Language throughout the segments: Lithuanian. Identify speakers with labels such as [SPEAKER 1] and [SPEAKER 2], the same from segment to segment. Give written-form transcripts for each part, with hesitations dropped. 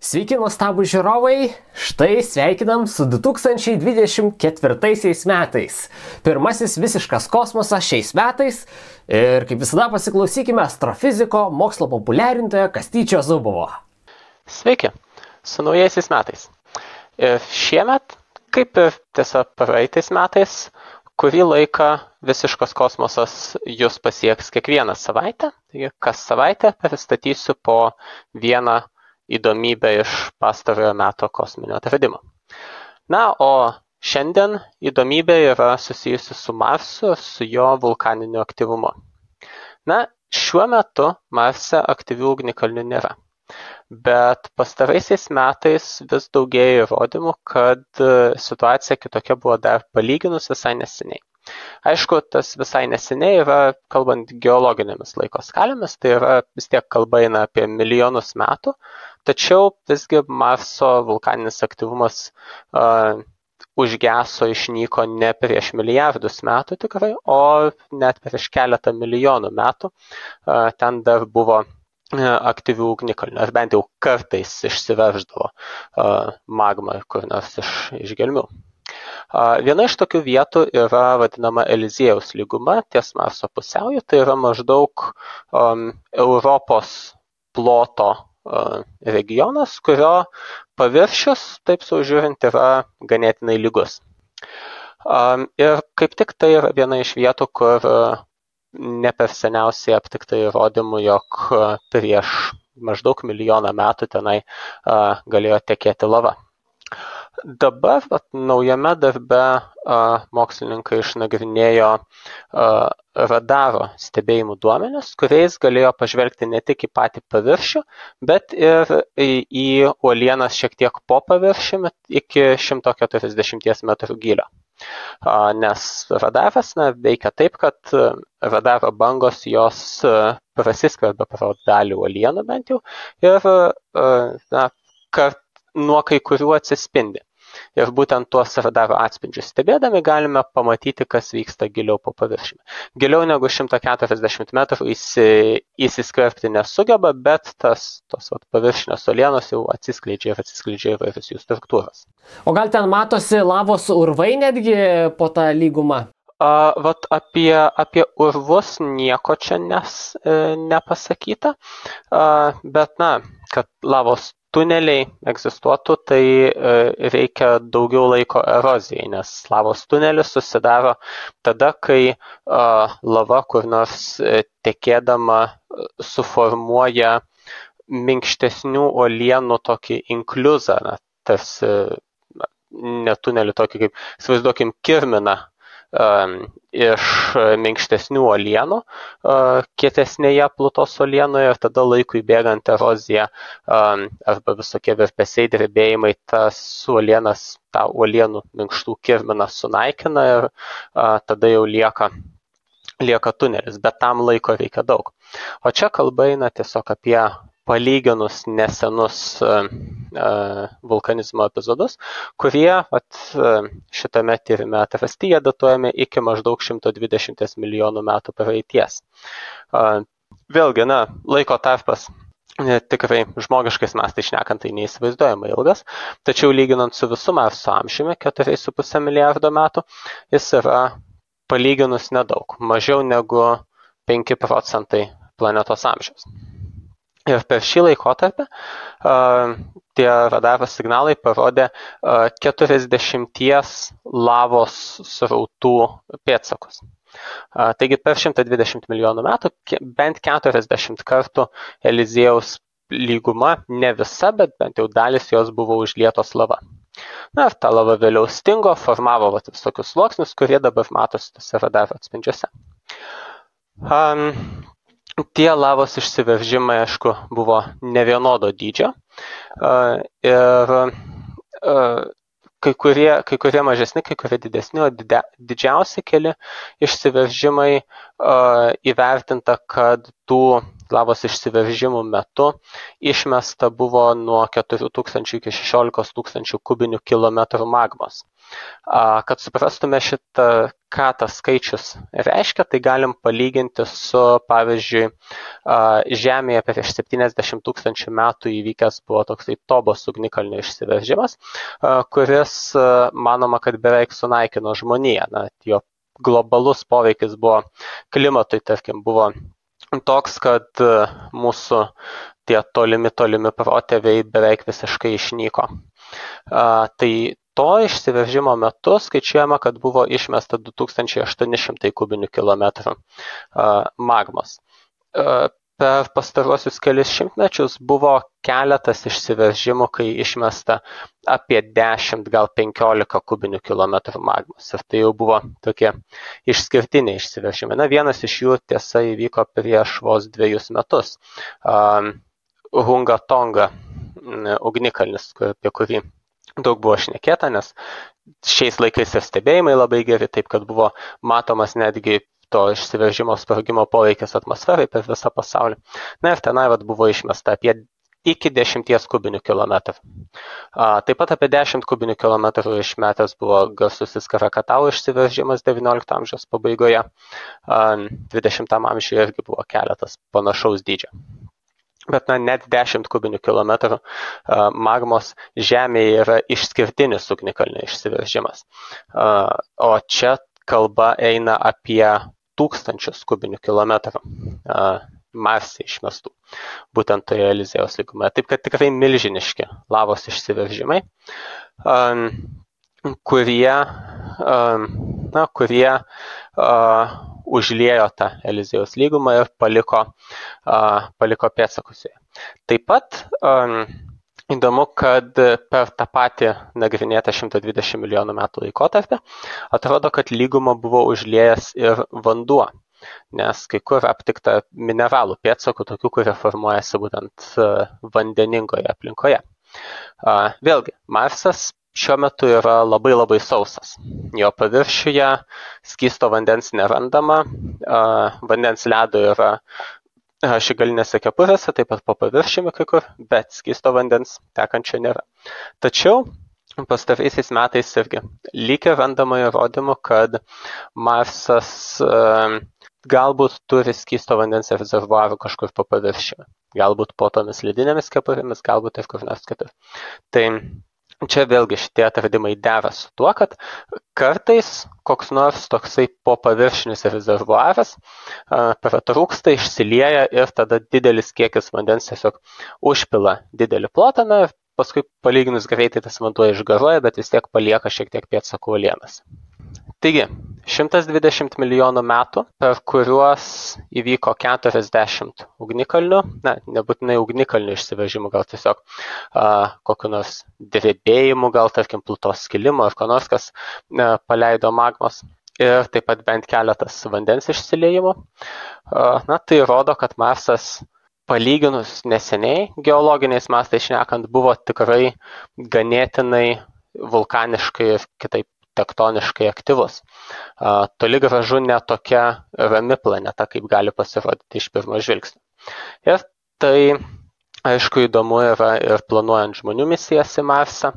[SPEAKER 1] Sveiki, nuostabų žiūrovai, štai sveikinam su 2024 metais. Pirmasis visiškas kosmosas šiais metais ir kaip visada pasiklausykime astrofiziko, mokslo populiarintojo Kastyčio Zubovo.
[SPEAKER 2] Sveiki, su naujaisiais metais. Šiemet, kaip ir tiesiog praeitais metais, kurį laiką visiškas kosmosas jūs pasieks kiekvieną savaitę. Taigi, kas savaitę pristatysiu po vieną įdomybę iš pastarojo meto kosminio atradimo. Na, o šiandien įdomybė yra susijusi su Marsu, su jo vulkaniniu aktyvumu. Na, šiuo metu Marse aktyvių ugnikalnių nėra. Bet pastaraisiais metais vis daugėja įrodymų, kad situacija kitokia buvo dar palyginus visai neseniai. Aišku, tas visai neseniai yra, kalbant geologinėmis laiko skalėmis, tai yra vis tiek kalba eina apie milijonus metų, tačiau visgi Marso vulkaninis aktyvumas užgeso, išnyko ne prieš milijardus metų tikrai, o net prieš keletą milijonų metų. Ten dar buvo aktyvių ugnikalnių, ar bent jau kartais išsiverždavo magma kur nors iš gelmių. Viena iš tokių vietų yra vadinama Eliziejaus lyguma ties Marso pusiauju, tai yra maždaug Europos ploto regionas, kurio paviršius, taip saužiūrint, yra ganėtinai lygus. Ir kaip tik tai yra viena iš vietų, kur ne per seniausiai aptikta įrodymų, jog prieš maždaug milijoną metų tenai galėjo tekėti lava. Dabar naujame darbe mokslininkai išnagrinėjo radaro stebėjimų duomenis, kuriais galėjo pažvelgti ne tik į patį paviršių, bet ir į uolienas šiek tiek po paviršiumi iki 140 metrų gylio. Nes radaras veikia taip, kad radaro bangos jos prasiskverbia pro dalį uolienų bent jau ir nuo kai kurių atsispindi. Ir būtent tuos radaro atspindžius stebėdami galime pamatyti, kas vyksta giliau po paviršiumi. Giliau negu 140 metrų įsiskverbti nesugeba, bet tos paviršinės uolienos jau atsiskleidžia įvairios jų struktūros.
[SPEAKER 1] O gal ten matosi lavos urvai netgi po tą lygumą?
[SPEAKER 2] Apie urvus nieko čia nepasakyta, bet kad lavos tuneliai egzistuotų, tai reikia daugiau laiko erozijai, nes lavos tunelis susidaro tada, kai lava kur nors tekėdama suformuoja minkštesnių uolienų tokį inkliuzą, tarsi ne tunelį tokį, kaip įsivaizduokim, kirminą iš minkštesnių uolienų kietesnėje plutos uolienoje ir tada laikui bėgant erozija arba visokie virpesiai, drebėjimai tas uolienas, tą uolienų minkštų kirminą sunaikina ir tada jau lieka tunelis, bet tam laiko reikia daug. O čia kalba eina tiesiog apie palyginus nesenus vulkanizmo epizodus, kurie šitame tyrime atrasti, jie datuojami iki maždaug 120 milijonų metų praeities. Vėlgi, laiko tarpas tikrai žmogiškais mastais šnekant, tai neįsivaizduojamai ilgas, tačiau lyginant su visu Marso amžiumi, 4,5 milijardo metų, jis yra palyginus nedaug, mažiau negu 5% planetos amžiaus. Ir per šį laikotarpį tie radaro signalai parodė 40 lavos srautų pėdsakus. Taigi per 120 milijonų metų bent 40 kartų Eliziejaus lyguma, ne visa, bet bent jau dalis jos buvo užlietos lava. Ir ta lava vėliau stingo, formavo visokius sluoksnius, kurie dabar matosi tose radaro atspindžiuose. Tie lavos išsiveržimai, aišku, buvo nevienodo dydžio ir kai kurie mažesni, kai kurie didesni, o didžiausi keli išsiveržimai įvertinta, kad tų lavos išsiveržimų metu išmesta buvo nuo 4000 iki 16 000 kubinių kilometrų magmos. Kad suprastume ką tas skaičius reiškia, tai galim palyginti su, pavyzdžiui, Žemėje prieš 70 000 metų įvykęs buvo toksai Tobos ugnikalnio išsiveržimas, kuris manoma, kad beveik sunaikino žmoniją. Jo globalus poveikis buvo klimatui, tarkim, buvo toks, kad mūsų tie tolimi protėviai beveik visiškai išnyko. Tai to išsiveržimo metu skaičiuojama, kad buvo išmesta 2800 kubinių kilometrų magmos. Per pastaruosius kelis šimtmečius buvo keletas išsiveržimų, kai išmesta apie 10, gal 15 kubinių kilometrų magmos. Ir tai jau buvo tokie išskirtiniai išsiveržimai. Vienas iš jų tiesa įvyko prieš vos 2 metus. Hunga Tonga ugnikalnis, apie kurį daug buvo šnekėta, nes šiais laikais ir stebėjimai labai geri, taip kad buvo matomas netgi to išsiveržimo sprogimo poveikis atmosferai per visą pasaulį. Ir tenai buvo išmesta apie iki 10 kubinių kilometrų. Taip pat apie 10 kubinių kilometrų išmetęs buvo garsusis Krakatau išsiveržimas 19 amžiaus pabaigoje. 20 amžiuje irgi buvo keletas panašaus dydžio. Bet net 10 kubinių kilometrų magmos Žemėje yra išskirtinis ugnikalnio išsiveržimas. O čia kalba eina apie 1000 kubinių kilometrų Marse išmestų, būtent toje Eliziejaus lygumoje. Taip kad tikrai milžiniški lavos išsiveržimai, kurie užliejo tą Eliziejaus lygumą ir paliko pėdsakus joje. Taip pat įdomu, kad per tą patį nagrinėtą 120 milijonų metų laikotarpį atrodo, kad lygumą buvo užliejęs ir vanduo, nes kai kur aptikta mineralų pėdsakų, tokių, kurie formuojasi būtent vandeningoje aplinkoje. Vėlgi, Marsas šiuo metu yra labai sausas. Jo paviršiuje skysto vandens nerandama, vandens ledo yra šigalinėse kepurėse, taip pat po paviršiumi kai kur, bet skysto vandens tekančio nėra. Tačiau pastaraisiais metais irgi lyg ir randama įrodymų, kad Marsas galbūt turi skysto vandens rezervuarų kažkur po paviršiumi. Galbūt po tomis ledinėmis kepurėmis, galbūt ir kur nors kitur. Tai čia vėlgi šitie atradimai dera su tuo, kad kartais koks nors toksai po paviršinis rezervuaras pratrūksta, išsilieja ir tada didelis kiekis vandens tiesiog užpila didelį plotą, ir paskui palyginus greitai tas vanduo išgaruoja, bet vis tiek palieka šiek tiek pėdsakų uolienas. Taigi, 120 milijonų metų, per kuriuos įvyko 40 ugnikalnių, nebūtinai ugnikalnių išsiveržimų, gal tiesiog kokiu nors drebėjimu, gal tarkim plutos skilimo ar ko nors, kas paleido magmos, ir taip pat bent keletas vandens išsiliejimų. Tai rodo, kad Marsas palyginus neseniai, geologiniais mastais šnekant, buvo tikrai ganėtinai vulkaniškai ir kitaip tektoniškai aktyvus. Toli gražu ne tokia rami planeta, kaip gali pasirodyti iš pirmo žvilgsnio. Ir tai, aišku, įdomu yra ir planuojant žmonių misijas į Marsą.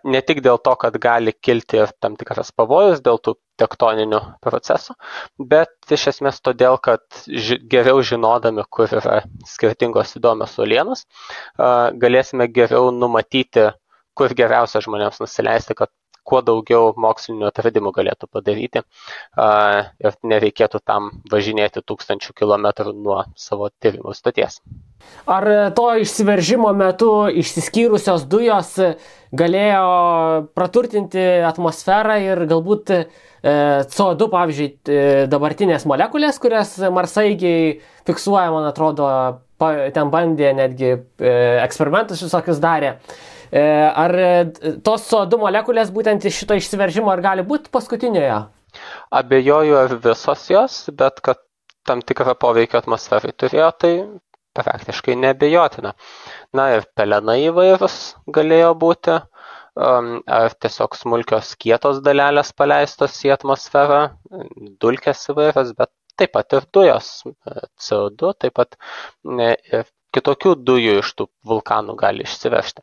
[SPEAKER 2] Ne tik dėl to, kad gali kilti ir tam tikras pavojus dėl tų tektoninių procesų, bet iš esmės todėl, kad geriau žinodami, kur yra skirtingos įdomios uolienos, galėsime geriau numatyti, kur geriausia žmonėms nusileisti, kad kuo daugiau mokslinių atradimų galėtų padaryti ir nereikėtų tam važinėti 1000 kilometrų nuo savo tyrimų stoties.
[SPEAKER 1] Ar to išsiveržimo metu išsiskyrusios dujos galėjo praturtinti atmosferą ir galbūt CO2, pavyzdžiui, dabartinės molekulės, kurias marsaigiai fiksuoja, man atrodo, ten bandė netgi eksperimentus visokius darė. Ar tos CO2 molekulės būtent iš šito išsiveržimo ar gali būti paskutinioje?
[SPEAKER 2] Abejoju ar visos jos, bet kad tam tikrą poveikį atmosferai turėjo, tai praktiškai neabejotina. Ir pelenai įvairūs galėjo būti, ar tiesiog smulkios kietos dalelės paleistos į atmosferą, dulkės įvairios, bet taip pat ir dujos, CO2, taip pat ir kitokių dujų iš tų vulkanų gali išsivežti.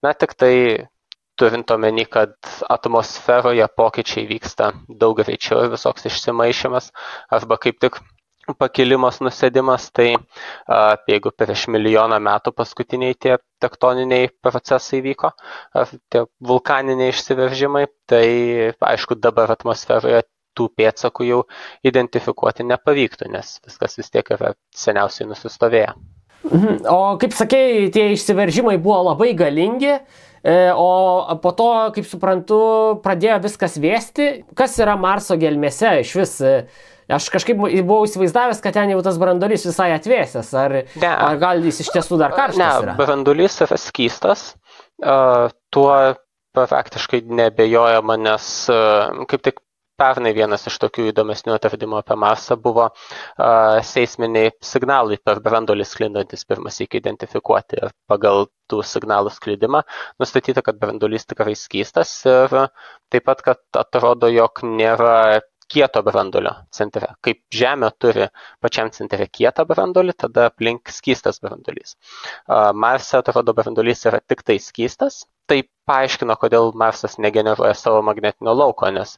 [SPEAKER 2] Na, tik tai turint omeny, kad atmosferoje pokyčiai vyksta daug greičiau ir visoks išsimaišymas, arba kaip tik pakilimas, nusėdimas, tai jeigu prieš milijoną metų paskutiniai tie tektoniniai procesai vyko, tie vulkaniniai išsiveržimai, tai aišku dabar atmosferoje tų pėdsakų jau identifikuoti nepavyktų, nes viskas vis tiek yra seniausiai nusistovėję.
[SPEAKER 1] O kaip sakei, tie išsiveržimai buvo labai galingi, o po to, kaip suprantu, pradėjo viskas vėsti. Kas yra Marso gelmėse iš vis? Aš kažkaip buvau įsivaizdavęs, kad ten jau tas branduolys visai atvėsęs. Ar gal jis iš tiesų dar karštas yra?
[SPEAKER 2] Ne, branduolys yra skystas. Tuo praktiškai neabejojama, nes kaip tik pernai vienas iš tokių įdomesnių atradimų apie Marsą buvo seisminiai signalai per branduolį sklindantis pirmas iki identifikuoti. Ir pagal tų signalų sklidimą nustatyta, kad branduolys tikrai skystas ir taip pat, kad atrodo, jog nėra kieto branduolio centre. Kaip Žemė turi pačiam centre kietą branduolį, tada aplink skystas branduolys. Marse atrodo branduolys yra tik tai skystas. Tai paaiškino, kodėl Marsas negeneruoja savo magnetinio lauko, nes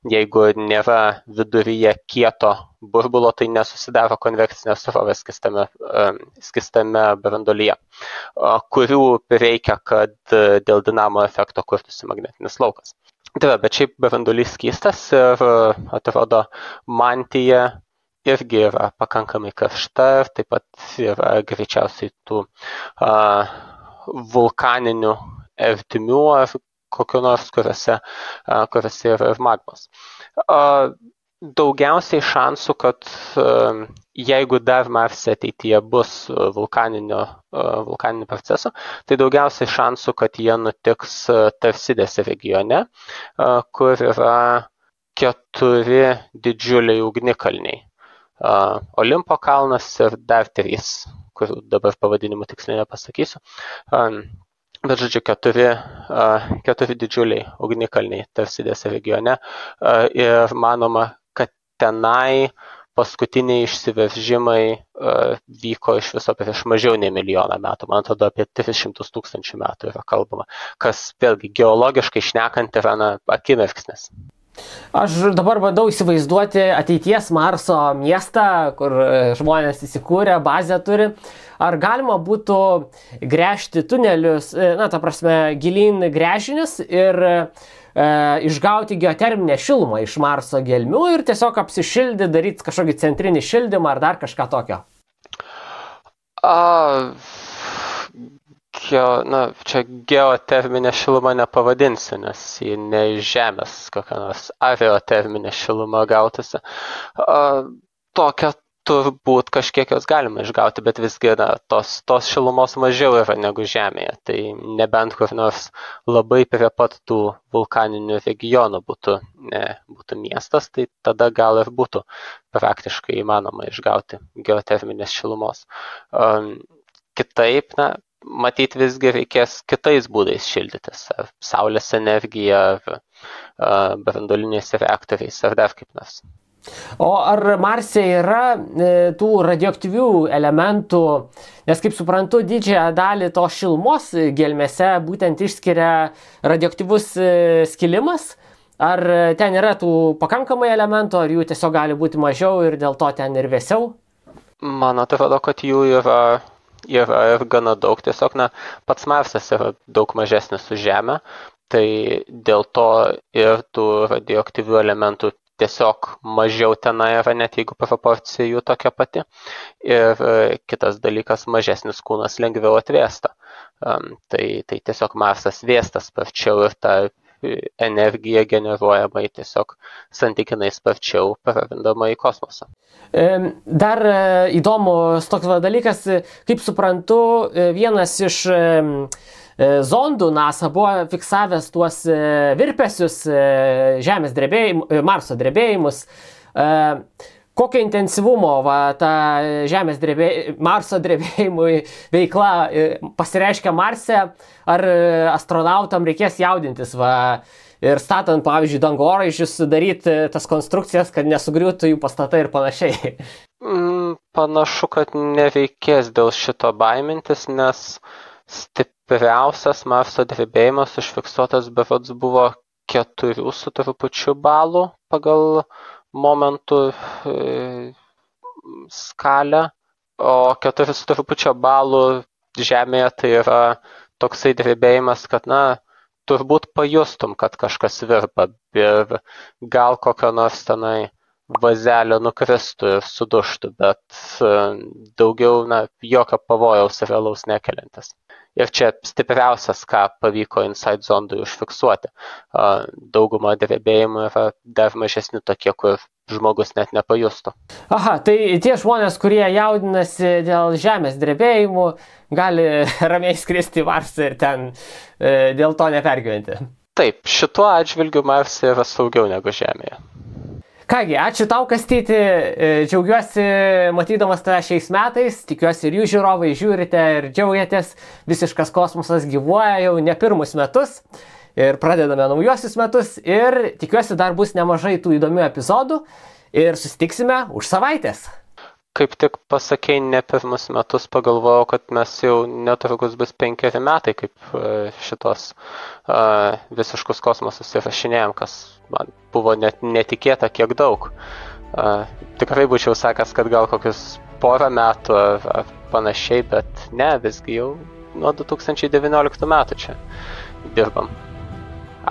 [SPEAKER 2] jeigu nėra viduryje kieto burbulo, tai nesusidaro konvekcinės srovės skystame branduolyje, kurių reikia, kad dėl dinamo efekto kurtųsi magnetinis laukas. Tai bet šiaip branduolys skystas ir atrodo mantija irgi yra pakankamai karšta ir taip pat yra greičiausiai tų vulkaninių ertmių ar kokiu nors, kuriuose yra ir magmos. Daugiausiai šansų, kad jeigu dar Marse ateityje bus vulkaninių procesų, tai daugiausiai šansų, kad jie nutiks Tarsidės regione, kur yra 4 didžiuliai ugnikalniai. Olimpo kalnas ir dar 3, kurių dabar pavadinimų tiksliai nepasakysiu. Bet žodžiu, 4 didžiuliai ugnikalniai Tarsidės regione ir manoma, kad tenai paskutiniai išsiveržimai vyko iš viso prieš mažiau nei milijoną metų. Man atrodo, apie 300 000 metų yra kalbama, kas vėlgi geologiškai šnekant yra akimirksnis.
[SPEAKER 1] Aš dabar bandau įsivaizduoti ateities Marso miestą, kur žmonės įsikūrė, bazę turi. Ar galima būtų gręžti tunelius, ta prasme, gilyn gręžinius ir išgauti geoterminę šilumą iš Marso gelmių ir tiesiog apsišildyti, daryti kažkokį centrinį šildymą ar dar kažką tokio?
[SPEAKER 2] Čia geoterminė šiluma nepavadinsi, nes ji ne iš Žemės kokia nors aeroterminė šiluma gautasi. Tokia turbūt kažkiek jos galima išgauti, bet visgi tos šilumos mažiau yra negu Žemėje. Tai nebent kur nors labai prie pat tų vulkaninių regionų būtų miestas, tai tada gal ir būtų praktiškai įmanoma išgauti geoterminės šilumos. Kitaip, matyt, visgi reikės kitais būdais šildytis, ar saulės energija, ar branduoliniais reaktoriais, ar dar kaip nors.
[SPEAKER 1] O ar Marse yra tų radioaktyvių elementų, nes kaip suprantu, didžiąją dalį to šilumos gelmėse būtent išskiria radioaktyvus skilimas? Ar ten yra tų pakankamai elementų, ar jų tiesiog gali būti mažiau ir dėl to ten ir vėsiau?
[SPEAKER 2] Man atrodo, kad jų yra ir gana daug. Tiesiog, pats Marsas yra daug mažesnis už Žemę, tai dėl to ir tų radioaktyvių elementų tiesiog mažiau tenai yra, net jeigu proporcija jų tokia pati. Ir kitas dalykas, mažesnis kūnas lengviau atvėsta. Tai tiesiog Marsas vėsta sparčiau ir ta energija generuojama tiesiog santykinai sparčiau prarandama į kosmosą.
[SPEAKER 1] Dar įdomus toks dalykas, kaip suprantu, vienas iš zondų NASA buvo fiksavęs tuos virpesius Marso drebėjimus. kokio intensyvumo ta Marso drebėjimui veikla pasireiškia Marse, ar astronautam reikės jaudintis ir statant, pavyzdžiui, dangoraižius, daryti tas konstrukcijas, kad nesugriūtų jų pastatai ir panašiai.
[SPEAKER 2] Panašu, kad nereikės dėl šito baimintis, nes stipriausias Marso drebėjimas užfiksuotas berods buvo 4 su trupučiu balų pagal momentų skalę, o 4 su trupučio balų Žemėje tai yra toksai drebėjimas, kad, turbūt pajustum, kad kažkas virpa ir gal kokio nors tenai vazelio nukristų ir suduštų, bet daugiau, jokio pavojaus realaus nekeliantis. Ir čia stipriausias, ką pavyko Insight zondui užfiksuoti. Dauguma drebėjimų yra dar mažesni tokie, kur žmogus net nepajustų.
[SPEAKER 1] Aha, tai tie žmonės, kurie jaudinasi dėl Žemės drebėjimų, gali ramiai skristi į Marsą ir ten dėl to nepergyventi.
[SPEAKER 2] Taip, šituo atžvilgiu Marse yra saugiau negu Žemėje.
[SPEAKER 1] Kągi, ačiū tau, Kastyti, džiaugiuosi matydamas tave šiais metais, tikiuosi ir jūs žiūrovai žiūrite ir džiaugiatės, Visiškas kosmosas gyvuoja jau ne pirmus metus ir pradedame naujuosius metus ir tikiuosi dar bus nemažai tų įdomių epizodų ir susitiksime už savaitės.
[SPEAKER 2] Kaip tik pasakei ne pirmus metus, pagalvojau, kad mes jau netrukus bus 5 metai, kaip šitos Visiškus kosmosus įrašinėjom, kas man buvo net netikėta kiek daug. Tikrai būčiau sakęs, kad gal kokius 1 metų ar panašiai, bet ne, visgi jau nuo 2019 metų čia dirbam.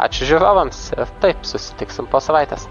[SPEAKER 2] Ačiū žiūrovams ir taip, susitiksim po savaitės.